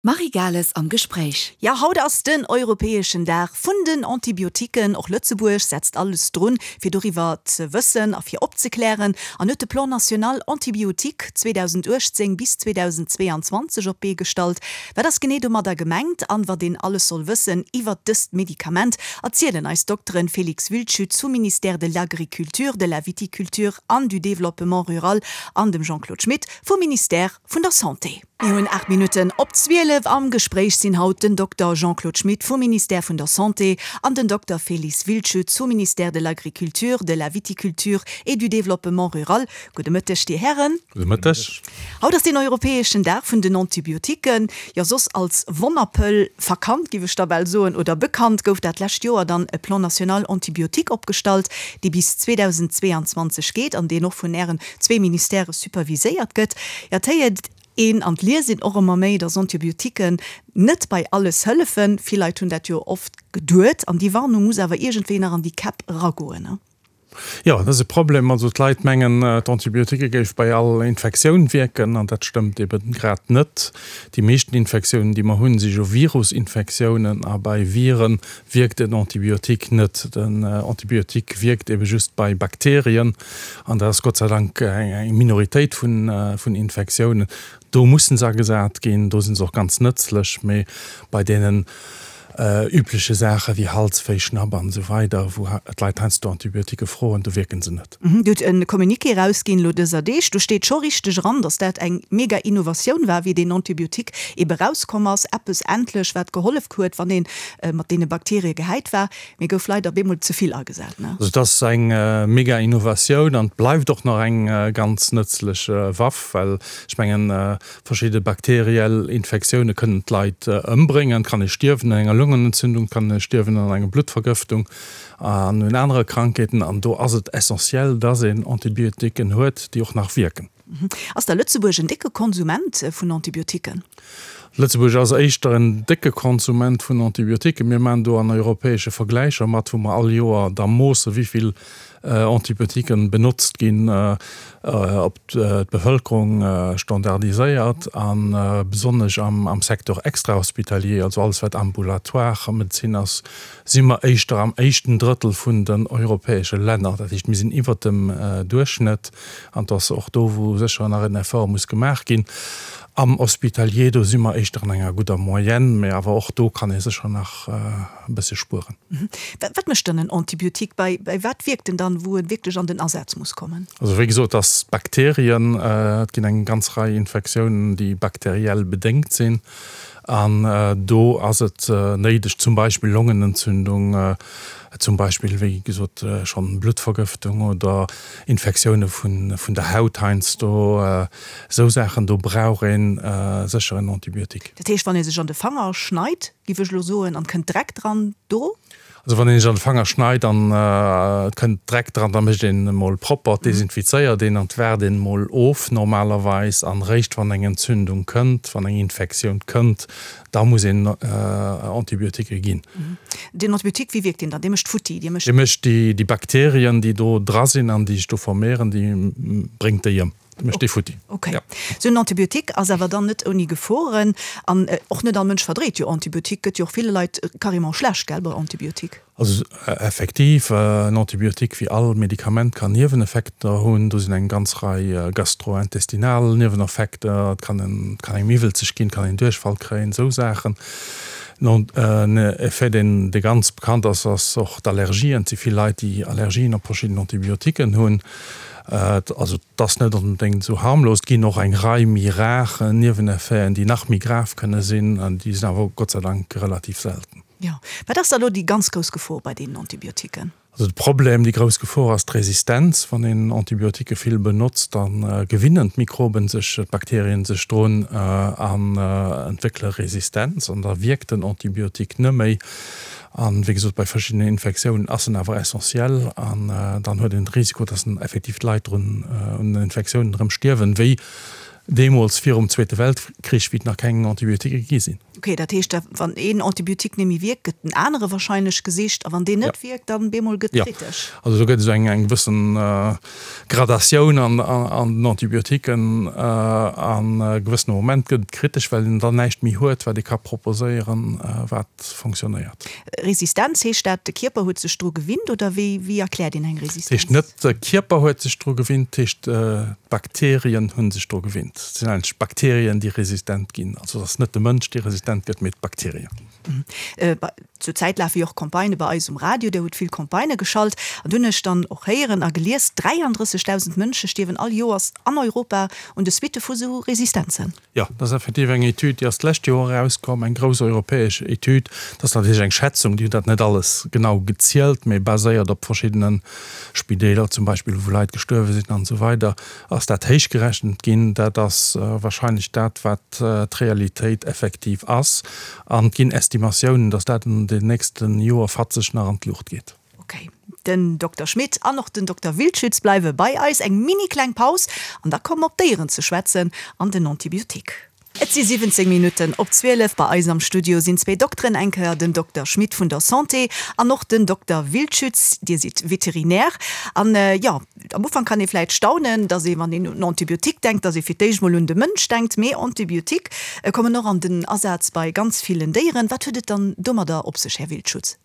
Marie Gales am Gespréich. Jo, haut ass den europäeschen Dag vun den Antibiotiquen. Och Lëtzebuerg setzt alles drun, fir doriwwer ze wëssen a fir opzeklären an huet de Plan national antibiotique 2018 bis 2022 op d'Bee gestallt. Wat ass genee domadder gemengt an wat een alles soll wëssen iwwert dëst Medikament, erzielen eis d'Dokteren Félix Wildschütz vum Ministère de l'Agriculture, de la Viticulture an du Développement rural an dem Jean-Claude Schmit vum Ministère vun der Santé. Mir hunn 8 Minutten op 12. Am Gespréich sinn haut den Dokter Jean-Claude Schmit vum Ministère vun der Santé an den Dokter Félix Wildschütz vum Ministère de l'Agriculture, de la Viticulture et du Développement rural. Gudde Mëtteg, Dir Hären. Gudde Mëtteg. Haut ass deen europäeschen Dag vun den Antibiotiquen, jo soss als Wonnerpëll verkannt, giff ech da bal soen, oder bekannt, gouf dat lescht Joer dann e Plan national antibiotique opgestallt, dee bis 2022 geet an deen och vun Ären zwee Ministèrë superviséiert gëtt. Jo, et héiert een an et liest een och ëmmer méi, dass Antibiotiquen net bei alles hëllefen. Vill Leit hunn dat jo oft geduet an déi Warnung muss awer iergendwéi nach an déi Käpp eragoen, ne? Jo, dat ass e Problem. Also d'Leit mengen, d'Antibiotiquë géif bei all Infektioun wierken an dat stëmmt ebe grad net. Déi meeschten Infektiounen, déi mer hunn, si jo Virusinfektiounen a bei Viren wierkt en Antibiotique net. Den Antibiotique wierkt ebe just bei Bakterien an dat ass Gott sei Dank eng Minoritéit vun Infektiounen. Do mussen se agesat ginn, do si se och ganz nëtzlech, mee bei deenen übleche Saache wéi Halswéi, Schnapp an esou weider, wou d'Leit heiansdo Antibiotiquë froen, do wierke se net. Dir hutt e Communiqué erausginn elo dëser Deeg, do steet scho richteg eran, datt dat eng mega Innovatioun war, wéi deen Antibiotique ebe erauskomm ass, eppes endlech, wat gehollef huet, wann ee mat deene Bakterie gehäit war. Mee gouf leider op eemol ze vill agesat, ne? Also et ass eng mega Innovatioun an et bleift och nach eng ganz nëtzlech Waff, well ech mengen, verschidde bakteriell Infektioune kënnen d'Leit ëmbréngen. Et kann ee stierwen un enger Longenentzündung, et kann ee stierwen an enger Bluttvergëftung an un anere Krankheeten. An do ass et essentiell, dass een Antibiotiquen huet, déi och nach wierken. Ass da Lëtzebuerg en décke Konsument vun Antibiotiquen? Lëtzebuerg ass éischter en décke Konsument vun Antibiotiquen. Mir maachen do an europäesche Vergläicher mat, wou mer all Joer da moosse wéi vill Antibiotiquen benotzt ginn, op d'Bevëlkerung standardiséiert a besonnesch am Secteur extrahospitalier, also alles wat ambulatoire Medezin ass, si mer éischter am éischten Drëttel vun den europäesche Länner. Dat heescht, mir sinn iwwert dem Duerchschnëtt. An et ass och do, wou sécher nach en Effort muss gemaach ginn. Am Hospitalier, do si mer éischter an enger gudder Moyenne, mä awer och do kann ee sécher nach e bësse spueren. Wat mécht dann en Antibiotique? Bei wat wierkt en dann, wou e wierklech an den Asaz muss kommen? Also wéi gesot, dass d'Bakterien, et ginn eng ganz Rei Infektiounen, déi bakteriell bedéngt sinn. An do ass et néideg, zum Beispill Longenentzündung, zum Beispill, wéi gesot schonn Bluttvergëftung oder Infektioune vun der Haut heiansdo, esou Saachen, do brauch ee sécher en Antibiotique. Dat heescht, wann ee sech an de Fanger schneit, giff ech elo soen, an et kënnt Dreck dran, do? Also wann een sech an de Fanger schneit an et kënnt Dreck dran, da mécht een e mol propper, desinfizéiert een an waart een mol of normalerweis. An réischt wann eng Entzündung kënnt, wann eng Infektioun kënnt, da muss een Antibiotiquë ginn. Den Antibiotique, wéi wierkt deen dann? Dee mécht futti, dee mécht. Dee mécht déi Bakterien, déi do dra sinn an déi sech do vermehren, déi bréngt déi ëm. Mécht dee futti. Ok. Sou en Antibiotique ass awer dann net ouni Geforen an och net all Mënsch verdréit jo Antibiotique. Gëtt jo och ville Leit carrément schlecht, gell, bei Antibiotique. Also effektiv, en Antibiotique wéi all Medikament kann Nieweneffekter hunn. Do sinn eng ganz Rei gastrointestinal Nieweneffekter, et kann en, et kann engem iwwelzeg ginn, et kann een Duerchfall kréien, esou Saachen. En Effet deen, dee ganz bekannt ass, ass och d'Allergien. Et si vill Leit, déi Allergien op verschidden Antibiotiquen hunn. Also et ass net onbedéngt esou harmlos. Et ginn och eng Rei méi rar Nieweneffeten, déi nach méi grav kënne sinn. Déi sinn awer Gott sei Dank relativ selten. Jo. Wat ass da elo déi ganz grouss Gefor bei deenen Antibiotiquen? Also de Problem, déi grouss Gefor ass d'Resistenz. Wann een Antibiotiquë vill benotzt, da gewinnen d'Mikroben sech, d'Bakterien sech drun an entwéckele Resistenz an da wierkt den Antibiotique net méi. An, wéi gesot, bei verschiddenen Infektiounen ass en awer essentiell an dann huet een de Risiko, dass en effektiv d'Leit drun un den Infektiounen erëm stierwen, wéi deemools virum Zweete Weltkrich, wéi et nach keng Antibiotiquë gi sinn. Ok, dat heescht da wann een Antibiotique net méi wierkt, gëtt en anere wahrscheinlech gesicht a wann deen net wierkt, dann bemol gëtt kritesch. Jo, also do gëtt esou eng eng gewëssen Gradatioun an an den Antibiotiquen an e gewëssene Moment gëtt et kritesch, well een dann näischt méi huet, wat ee ka proposéieren, wat fonctionnéiert. Resistenz, heescht dat de Kierper huet sech dru gewinnt oder wéi wéi erkläert een eng Resistenz? Dat heescht net de Kierper huet sech dru gewinnt, dat heescht d'Bakterien hu sech dru gewinnt. Et sinn eigentlech d'Bakterien déi resistent ginn. Also et ass net de Mënsch dee resistent gëtt, mee d'Bakterien. Zur Zäit lafe jo och Campagnë bei eis um Radio, Dir hutt vill Campagnë geschalt an do hunn ech dann och héieren a gelies, 33.000 Mënsche stierwen all Joers an Europa un de Suitte vu sou Resistenzen. Jo, dat ass effektiv eng Etüd, déi ass d'lescht Joer erauskomm, eng grouss europäesch Etüd. Dat ass natierlech eng Schätzung, déi hunn dat net alles genau gezielt, mee baséiert op verschiddene Spideeler zum Beispill, wou Leit gestuerwe sinn an esou weider, ass dat héichgerechent ginn. Dat ass wahrscheinlech dat, wat d'Realitéit effektiv ass. An et ginn Estimatiounen, datt dat an den nächste Joer fatzeg nach an d'Luucht geet. Ok, den Dokter Schmit an och den Dokter Wildschütz bleiwe bei eis. Eng mini kleng Paus an da komme mer op d'Déieren ze schwätzen an den Antibiotique. Et si 17 Minutten op 12. Bei eis am Studio sinn zwéi Dokteren, eng Kéier den Dokter Schmit vun der Santé an och den Dokter Wildschütz. Dir sidd Veterinär an, jo, am Ufank kann ee vläit staunen, dass ee, wann een un Antibiotique denkt, dass ee fir d'éischt mol un de Mënsch denkt. Mee Antibiotique kommen och an den Asaz bei ganz villen Déieren. Wat huet et dann domadder op sech, Här Wildschutz?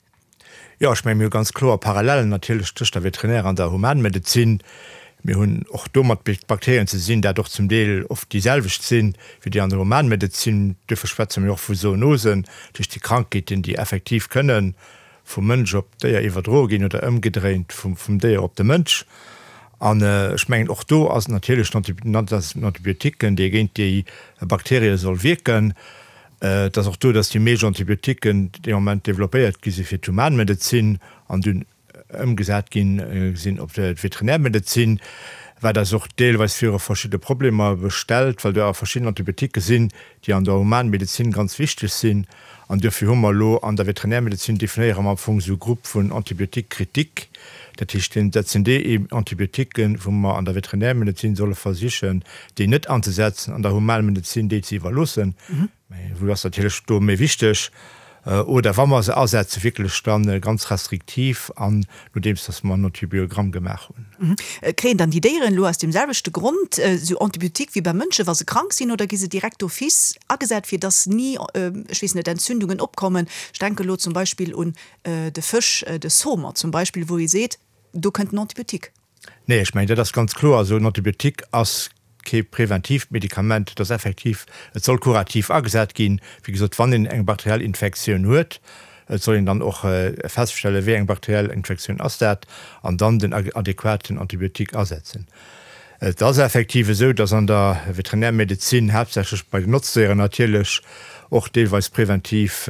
Jo, ech mengen, mir hu ganz kloer Parallellen natierlech tëscht der Veterinär an der Humanmedezin. Mir hunn och do mat Bakterien ze sinn, dat och zum Deel oft déi selwecht sinn, wéi déi an der Humanmedezin. Duerfir schwätze mir och vu Zoonosen, dat heescht déi Krankheeten, déi effektiv kënnen vum Mënsch op d'Déier iwwerdroe ginn oder ëmgedréint vum Déier op de Mënsch. An ech mengen, och do ass et natierlech den Antibiotiquen, dee géint déi Bakterie soll wierken. Et ass och do, dass déi meescht Antibiotiquen dee Moment developpéiert gi si fir d'Humanmedezin an dunn ëmgesat gi sinn op d'Veterinärmedezin, wat eis och deelweis viru verschidde Problemer stellt, well do awer verschidden Antibiotiquen sinn, déi an der Humanmedezin ganz wichteg sinn. An duerfir hu mer elo an der Veterinärmedezin definéiere mer am Fong esou e Grupp vun Antibiotiques critiques. Dat heescht, dat sinn déi Antibiotiquen, wou mer an der Veterinärmedezin solle versichen, déi net anzesetzen, an der Humanmedezin déi ze iwwerloossen, mä wou ass natierlech do méi wichteg, oder wa mer se asetzen, wierklech da ganz restriktiv an nodeems dass mer en Antibiogramm gemaach hunn. Kréien dann déi Déieren elo aus deem selwechte Grond esou Antibiotique wéi beim Mënsche wa se krank sinn, oder gi se direkt d'office agesat, fir dass ni, ech weess net, Entzündungen opkommen? Ech denke elo zum Beispill un de Fësch, de Saumon zum Beispill, wou ee seet, do kënnt en Antibiotique. Nee, ech mengen, dat ass ganz kloer esou. En Antibiotique ass kee preventiivt Medikament, et ass effektiv, et soll kurativ agesat ginn. Wéi gesot, wann een eng bakteriell Infektioun huet, et soll een dann och feststellen, wéi eng bakteriell Infektioun ass dat, an dann den adequaten Antibiotique asetzen. Et ass effektiv esou, dass an der Veterinärmedezin, haaptsächlech bei den Notzdéieren natierlech, och deelweis preventiv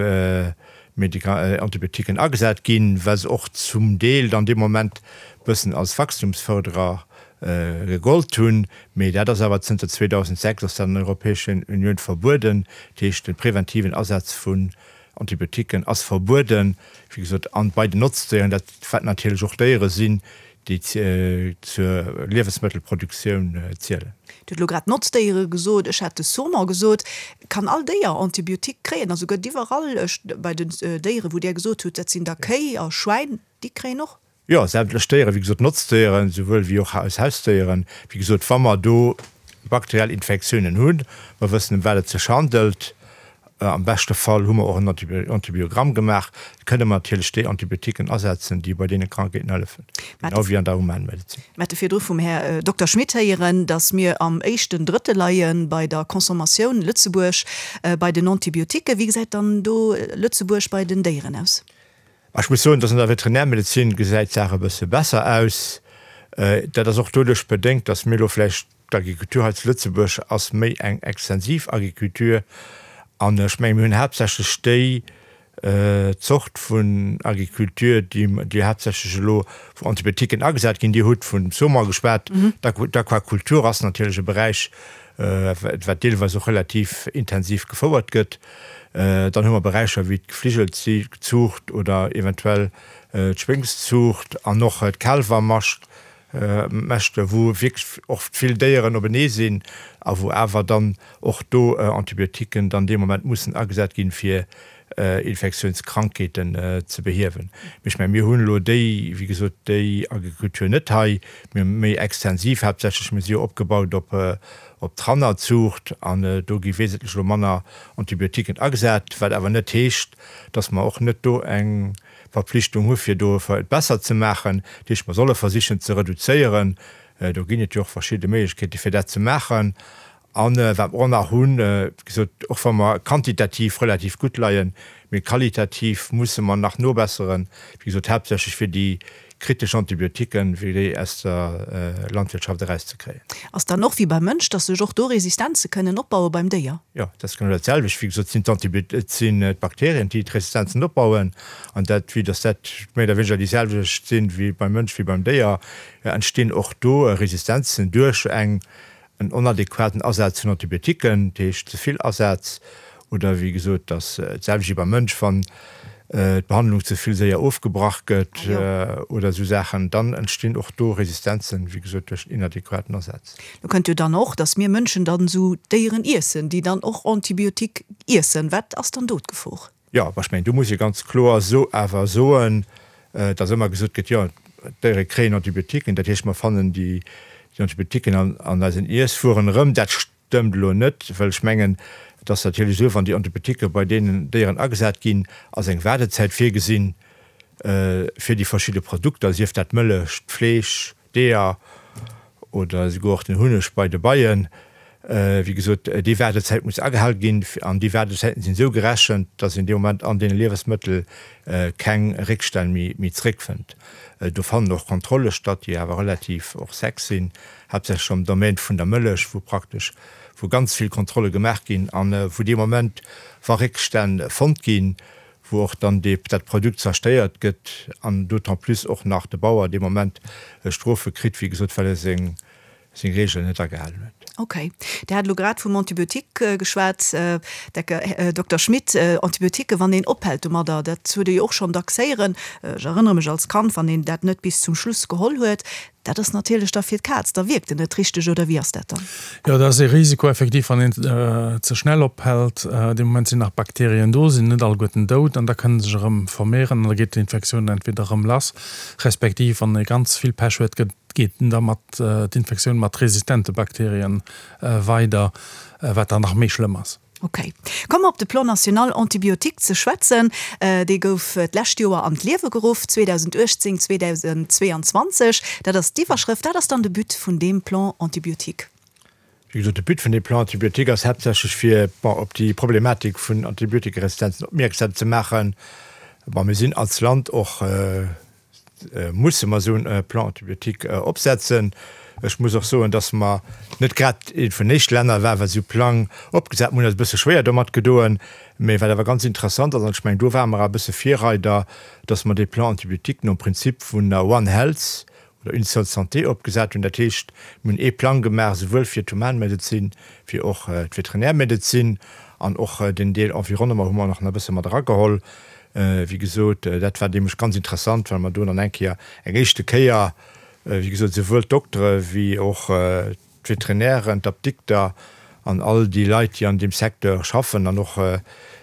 Antibiotiquen agesat ginn, well se och zum Deel dann dee Moment bëssen als Wachstumsförderer gegollt hunn. Mee dat ass awer zënter 2006 ass dat an der Europäeschen Unioun verbueden. Dat heescht, de preventiven Asaz vun Antibiotiquen ass verbueden, wéi gesot, an bei den Notzdéieren, dat wat natierlech och Déiere sinn, déi zur Liewensmëttelproduktioun zielen. Dir hutt elo grad Notzdéiere gesot, ech hat de Saumon gesot. Kann all Déier Antibiotique kréien? Also gëtt iwwerall, ech, bei den Déiere wou Dir gesot hutt, dat sinn da Kéi a Schwäin, déi kréien och? Jo, sämtlech Déieren, wéi gesot, Notzdéieren, souwuel wéi och eis Hausdéieren. Wéi gesot, wa mer do bakteriell Infektiounen hunn, mer wëssen ëm wat et sech handelt, Am beschte Fall hu mer och en Antibiogramm gemaach. Kënne mer natierlech déi Antibiotiquen asetzen, déi bei deene Krankheeten hëllefen, genau wéi an der Humanmedezin. Mir hate virdru vum Här Dokter Schmit héieren, datt mir am éischten Drëttel leie bei der Consommatioun, Lëtzebuerg, bei den Antibiotiquen. Wéi gesäit dann do Lëtzebuerg bei den Déieren aus? Ech muss soen, dass an der Veterinärmedezin gesäit d'Saach e bësse besser aus. Dat ass och doduerch bedéngt, dass mir elo vläicht, d'Agriculture hei zu Lëtzebuerg ass méi eng extensiv Agriculture an ech menge mir hunn haaptsächlech déi Zort vun Agriculture, déi déi haaptsächlech elo wou Antibiotiquen agesat ginn. Dir hutt vun Saumon geschwat. D'Aquakultur ass natierlech e Beräich, wat deelweis och relativ intensiv gefouert gëtt. Dann hu mer Beräicher wéi d'Gefligelzuucht oder eventuell d'Schwéngszuucht an och d'Kaalwermascht. Mäschte wou wierklech oft vill Déieren openee sinn a wou awer dann och do Antibiotiquen dann dee Moment mussen agesat ginn, fir Infektiounskrankheeten ze behiewen. Mee ech mengen, mir hunn elo déi, wéi gesot, déi Agrikultur net hei. Mir hu méi extensiv haaptsächlech, mir si jo opgebaut op op d'Rannerzuucht an do gi wesentlech elo manner Antibiotiquen agesat, wat awer net heescht, dass mer och net do eng Verpflichtung hu fir do et besser ze maachen. Dat heescht, mer solle versichen ze reduzéieren. Do ginn et jo och verschidde Méiglechkeete fir dat ze maachen. A wat mer och nach hunn, wéi gesot, och wa mer quantitativ relativ gutt leien, mee qualitativ musse mer nach nobesseren, wéi gesot, haaptsächlech fir déi kritesch Antibiotiquen, fir déi aus der Landwirtschaft erauszekréien. Ass dann och wéi beim Mënsch, dass sech och do Resistenze kënnen opbaue beim Déier? Jo, dat ass genau dat selwecht. Wéi gesot, et sinn d'Bakterien, déi d'Resistenzen opbauen. An dat, vue dass dat méi oder wéineger déi selwecht sinn wéi beim Mënsch wéi beim Déier, entstinn och do Resistenzen duerch eng en onadäquaten Asaz vun Antibiotiquen, dat heescht ze vill Asaz, oder wéi gesot, dass d'selwecht wéi beim Mënsch, wann d'Behandlung ze vill séier ofgebrach gëtt oder esou Saachen, dann entstinn och do Resistenzen, wéi gesot, duerch den inadäquaten Asaz. Do kënnt jo dann och, dass mir Mënschen dann esou Déieren iessen, déi dann och Antibiotique iessen. Wat ass dann do d'Gefor? Jo, ech mengen, do muss ee ganz kloer so awer soen, dass ëmmer gesot gëtt, jo, d'Déiere kréien Antibiotiquen, dat heescht, mer fannen déi Antibiotiquen an eisen Iesswueren erëm. Dat stëmmt elo net, well ech mengen, et ass natierlech esou, wann déi Antibiotiquen bei deenen Déieren agesat ginn, ass eng Waardezäit virgesinn fir déi verschidde Produkter, sief dat d'Mëllech, d'Fleesch, D'Eeër oder esouguer och den Hunneg bei de Beien. Wéi gesot, déi Waardezäit muss agehal ginn an déi Waardezäiten sinn esou gerechent, dass een dee Moment an deene Liewesmëttel keng Réckstänn méi zréckfënnt. Do fannen och Kontrolle statt, déi awer relativ och sec sinn, haaptsächlech am Domaine vun der Mëllech, wou praktesch wou ganz vill Kontrolle gemaach ginn an wou dee Moment, wa Réckstänn fonnt ginn, wou och dann dee, dat Produkt zerstéiert gëtt an d'autant plus och nach de Bauer dee Moment Strofe kritt, wéi gesot, well e seng, seng Regeln net agehalen huet. Okay. Dir hat elo grad vum Antibiotique geschwat, Här Dokter Schmit. Antibiotiquen, wann een ophält domadder, dat huet ee jo och schonn dacks héieren, ech erënnere mech als Kand, wann een dat net bis zum Schluss geholl huet, Dat ass natierlech da fir d'Kaz, da wierkt en net richteg, oder wéi ass dat dann? Jo, dat ass ee Risiko effektiv, wann een ze schnell ophält. Dee Moment sinn nach Bakterien do, sinn net alleguerten dout an da kënne sech erëm vermehren an da geet d'Infektioun entweder erëm lass, respektiv wann ee ganz vill Pech huet, gëtt geet da mat d'Infektioun mat resistente Bakterien weider, wat dann nach méi schlëmm ass. Ok. Komme mer op de Plan national antibiotique ze schwätzen. Dee gouf d'lescht Joer an d'Liewe geruff, 2018, 2022. Dat ass d'Iwwerschrëft. Wat ass dann de But vun deem Plan antibiotique? Wéi gesot, de But vun deem Plan antibiotique ass haaptsächlech fir, bon, op déi Problematik vun Antibiotikeresistenzen opmierksam ze maachen. Bon, mir sinn als Land och, musse mer esou e Plan antibiotique opsetzen. Ech muss och soen, dass mer net grad eent vun den éischte Länner war, wat esou e Plang opgesat. Mir hunn eis e bësse schwéier domat gedoen, mä wat awer ganz interessant ass, an ech mengen, do ware mer awer e bësse Virreider, dass mer dee Plan antibiotique nom Prinzip vun der One Health oder Une seule santé opgesat hunn. Dat heescht, mir hunn ee Plang gemaach, souwuel fir d'Humanmedezin wéi och d'Veterinärmedezin, an och den Deel Environnement hu mer och nach e bësse mat erageholl. Wéi gesot, dat war nämlech ganz interessant, well mer do dann eng Kéier, eng éischte Kéier, wéi gesot, souwuel d'Doktere wéi och d'Veterinären, d'Apdikter an all déi Leit, déi an deem Secteur schaffen an och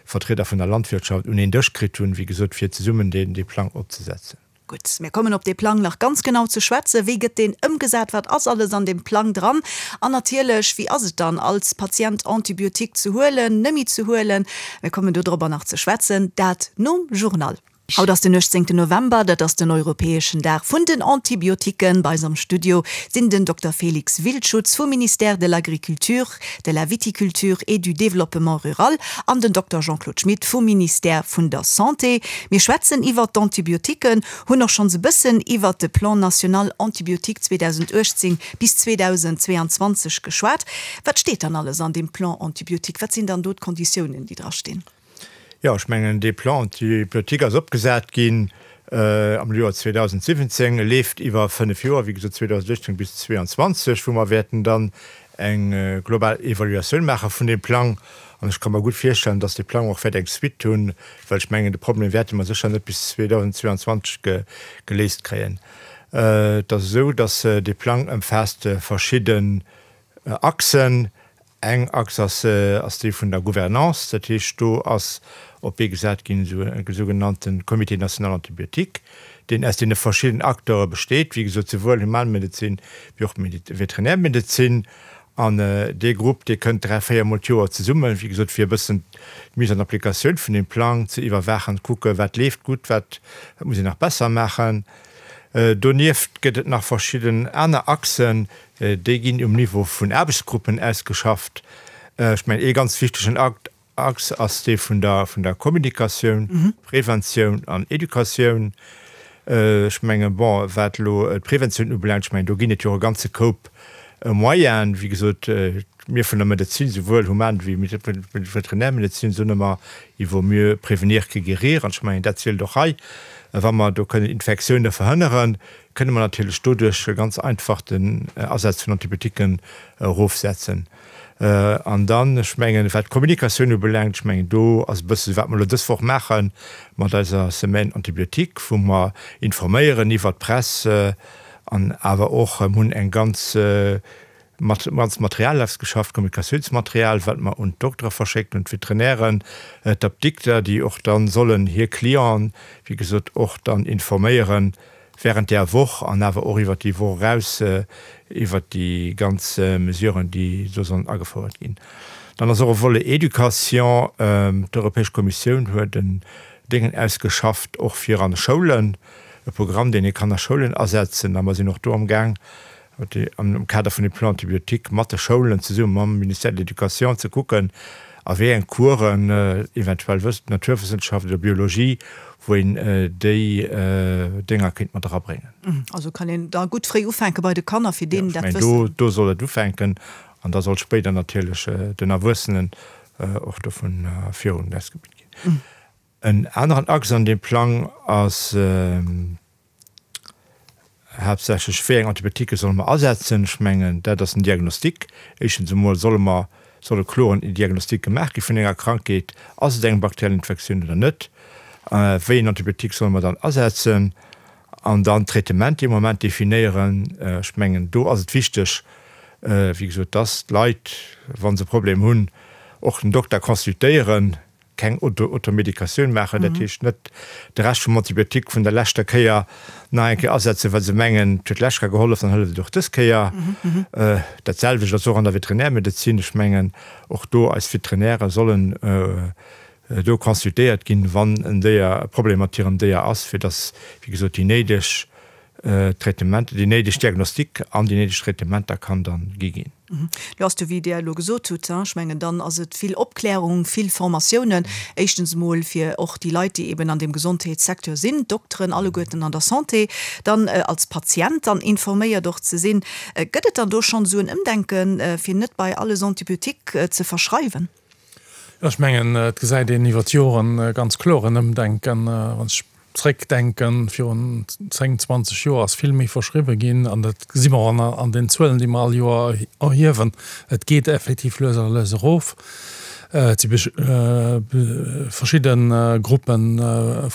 Vertrieder vun der Landwirtschaft un een Dësch kritt hunn, wéi gesot, fir zesummen dee Plang opzesetzen. Gutt, mir kommen op dee Plang nach ganz genau ze schwätzen. Wéi gëtt deen ëmgesat? Wat ass alles an deem Plang dran? An natierlech, wéi ass et dann als Patient Antibiotique ze huelen, nëmmi ze huelen? Mir kommen dodrobber nach ze schwätzen, dat nom Journal. Haut ass den 18 November, dat ass den europäeschen Dag vun den Antibiotiquen. Bei eis am Studio sinn den Dokter Félix Wildschutz vum Ministère de l'Agriculture, de la Viticulture et du Développement rural an den Dokter Jean-Claude Schmit vum Ministère vun der Santé. Mir schwätzen iwwert d'Antibiotiquen, hunn och schonns e bëssen iwwert de Plan national antibiotique 2018 bis 2022 geschwat. Wat steet dann alles an deem Plan antibiotique? Wat sinn dann do d'Konditiounen, déi drastinn? Jo, ech mengen, dee Plan antibiotique ass opgesat ginn am Joer 2017, e leeft iwwer fënnef Joer, wéi gesot 2018 bis 2022, wou mer wäerten dann eng global Evaluatioun maache vun deem Plang. An ech ka mer gutt virstellen, dass dee Plang och wäert eng Suite hunn, well ech mengen, de Problem wäerte mer sécher net bis 2022 geléist kréien. Et ass esou, dass dee Plang ëmfaasst verschidden Achsen. Eng Achs ass ass déi vun der Gouvernance, dat heescht do ass op d'Bee gesat ginn esou e sougenannte Comité national antibiotique, deen aus deene verschidden Acteure besteet, wéi gesot souwuel Humanmedezin wéi och Veterinärmedezin. An dee Grupp, dee kënnt 3, 4 mol d'Joer zesummen, wéi gesot, fir e bëssen d'Mise en application vun deem Plang ze iwwerwaachen, kucke wat leeft gutt, wat muss een nach besser maachen. Donieft gëtt et nach verschidden aner Achsen, déi ginn um Niveau vun Aarbechtsgruppen ausgeschafft. Ech mengen, ee ganz wichtegen Achs ass dee vun der, vun der Kommunikatioun, Preventioun an Educatioun. Ech mengen, bon, wat elo d'Preventioun ubelaangt, ech mengen, do ginn et jo och e ganze Koup Moyenen. Wéi gesot, mir vun der Medezin, souwuel Human wéi Veterinärmedezin, soen ëmmer, il vaut mieux prévenir que guérir. An ech mengen, dat zielt och hei. Wa mer do kënnen Infektioune verhënneren, kënne mer natierlech doduerch ganz einfach den Asaz vun Antibiotiquen erofsetzen. An dann, ech mengen, wat d'Kommunikatioun ubelaangt, ech mengen, do ass e bësse wat mer elo dës Woch maache mat eiser Semaine antibiotique, wou mer informéieren iwwert d'Press an awer och hunn eng ganz, ganz Material ausgeschafft, Kommunikatiounsmaterial, wat mer un d'Doktere verschécken, un d'Veterinären, d'Apdikter, déi och da sollen hir Clienten, wéi gesot, och dann informéieren, während där Woch an awer och iwwert déi Woch eraus iwwert déi ganz Mesuren, déi do sollen agefouert ginn. Dann ass och e Volet Éducation. D'Europäesch Kommissioun huet en Déngen ausgeschafft, och fir an de Schoulen, e Programm, deen ee kann a Schoulen asetzen. A mer sinn och do amgaang, am Kader vun dem Plan antibiotique mat de Schoulen zesumme mam Ministère de l'Éducation ze kucken, a wéi eng Coursen, eventuell Naturwëssenschaft oder Biologie, wou een déi Dénger kéint mat erabréngen. Also kann een da gutt fréi ufänke bei de Kanner, fir deenen dat Wëssen. Jo, ech mengen, do soll et ufänken an da soll spéider natierlech den Erwuessenen och dovun virun ausgebilt ginn. En aneren Axe an deem Plang ass, Haaptsächlech, wéi eng Antibiotiquë solle mer asetzen? Ech mengen, dat ass den Diagnostic. Éischtens emol solle mer, soll e kloren Diagnostic gemaach gi vun enger Krankheet. Ass et eng bakteriell Infektioun oder net? Wéi en Antibiotique solle mer dann asetzen? An dann d'Traitement dee Moment definéieren. Ech mengen, do ass et wichteg, wéi gesot, dass d'Leit, wa se e Problem hunn, och den Dokter consultéieren. Keng Automedikatioun maachen, dat heescht net de Rescht vum Antibiotique vun der leschter Kéier nach eng Kéier asetzen, well se mengen, et huet d'lescht Kéier gehollef, dann hëlleft et och dës Kéier. Dat selwecht ass och an der Veterinärmedezin. Ech mengen, och do, eis Veterinäre sollen do consultéiert ginn, wann en Déier e Problem mat hirem Déier ass, fir dass, wéi gesot, déi néideg Traitementer, déi néideg Diagnostik an déi néideg Traitementer kann dann gi ginn. Lo ass jo, wéi Dir elo gesot hutt, ech mengen, dann ass et vill Opklärung, vill Formatiounen, éischtens emol fir och déi Leit, déi eben an deem Gesondheetssecteur sinn, d'Dokteren alleguerten an der Santé, dann als Patient dann informéiert och ze sinn. Gëtt et dann do schonn esou en Ëmdenken, fir net bei alles Antibiotique ze verschreiwen? Jo, ech mengen, et gesäit een iwwer d'Joren ganz kloer en Ëmdenken. Wann ech zréckdenken, virun 10, 20 Joer ass vill méi verschriwwe ginn an dat gesi mer och an den Zuelen, déi mer all Joer erhiewen. Et geet effektiv lues a lues erof. Et si verschidde Gruppe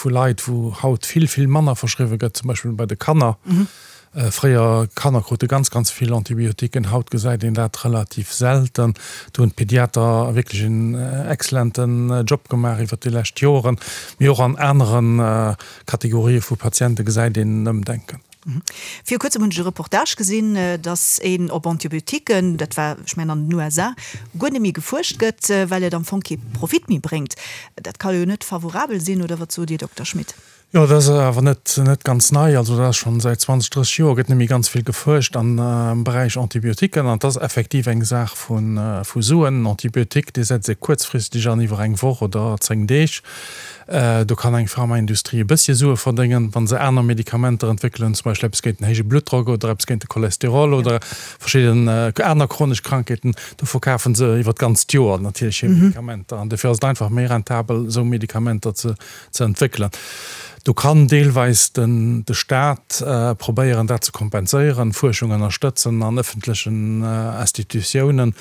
vu Leit, wou haut vill, vill manner verschriwwe gëtt, zum Beispill bei de Kanner. Fréier, Kanner krute ganz, ganz vill Antibiotiquen, haut gesäit een dat relativ selten. Do hunn d'Pediater wierklech en excellenten Job gemaach iwwert déi lescht Joren. Mee och an anere Kategorië vu Patiente gesäit een en Ëmdenken. Viru kuerzem hunn ech e Reportage gesinn, datt een op Antibiotiquen, dat war, ech mengen an den USA, guer net méi gefuerscht gëtt, well et am Fong kee Profit méi bréngt. Dat ka jo net favorabel sinn, oder wat sot Dir, Dokter Schmit? Jo, dat ass awer net net ganz nei. Also dat ass schonn säit 20, 30 Joer gëtt net méi ganz vill gefuerscht am Beräich Antibiotiquen. An et ass effektiv eng Saach vu vu Suen. En Antibiotique, dee setzt ee kuerzfristeg an iwwer eng Woch oder 10 Deeg. Do kann eng Pharmaindustrie e bëssche Sue verdéngen, wa se aner Medikamenter entwéckelen, zum Beispill eppes géint den héije Bluttdrock oder eppes géint de Cholesterol oder verschidden aner chronesch Krankheeten. Do verkafe se iwwer d'ganzt Joer natierlech hir Medikamenter. An dofir ass et einfach méi rentabel, esou Medikamenter ze ze entwéckelen. Do kann deelweis den de Staat probéieren, dat ze kompenséieren, Fuerschung ënnerstëtzen an ëffentlechen Institutiounen,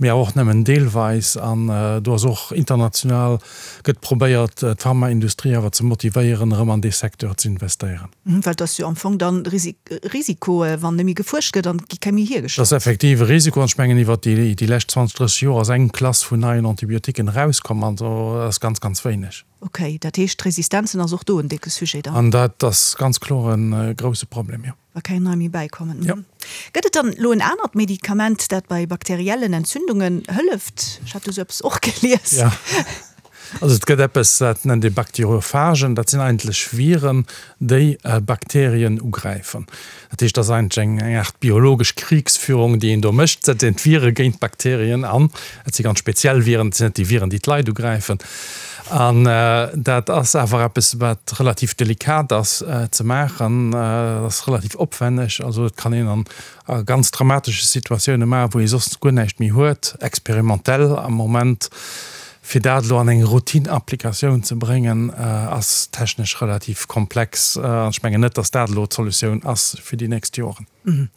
mee awer och nëmmen deelweis. An do ass och international gëtt probéiert, d'Pharmaindustrie awer ze motivéieren, erëm an dee Secteur ze investéieren. Well et ass jo am Fong dann Risiko, wann net méi gefuerscht gëtt an et gi keng méi hiergestallt. Dat ass effektiv e Risiko an ech mengen, iwwert déi lescht 20, 30 Joer ass eng Klass vun neien Antibiotiquen erauskomm an dat ass ganz, ganz wéineg. Ok, dat heescht d'Resistenzen ass och do en décke Sujet dann? An dat ass ganz kloer e grousse Problem, jo. Wa keng nei méi bäikommen. Jo. Gëtt et dann elo en anert Medikament, dat bei bakteriellen Entzündungen hëlleft? Ech hat do sou eppes och gelies. Jo. Also et gëtt eppes, dat nennt ee Bakteriophagen. Dat sinn eigentlech Viren, déi Bakterien ugräifen. Dat heescht, dat ass eigentlech eng Aart biologesch Kriegsführung, déi een do mécht. Et setzt een d'Vire géint d'Bakterien an. Et si ganz speziell Viren, et sinn net déi Viren, déi d'Leit ugräifen. An dat ass awer eppes, wat relativ delikat ass ze maachen. Dat ass relativ opwenneg. Also et kann een an ganz dramatesche Situatioune maachen, wou ee soss guer näischt méi huet, experimentell am Moment. Fir dat elo an eng Routine-Applikatioun ze bréngen, ass technesch relativ komplex. An ech mengen net, datt dat elo d'Solutioun ass fir déi nächst Joren.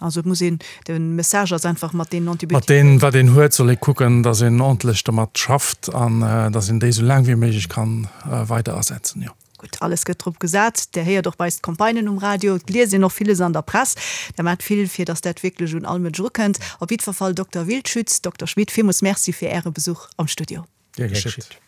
Also et muss een, de Message ass einfach mat deenen Antibiotiquen. Mat deem wat een huet, soll ee kucken, datt een ordentlech domat schafft an datt een déi esou laang wéi méiglech kann weider asetzen, jo. Gutt, alles gëtt drop gesat. Där héiert och bei eis d'Campagnen um Radio, et liest een och villes an der Press. Der maacht vill, fir datt dat wierklech un all Mënsch erukënnt. Op jiddwer Fall, Dokter Wildschütz, Dokter Schmit, villmools Merci fir Äre Besuch am Studio. Gär geschitt.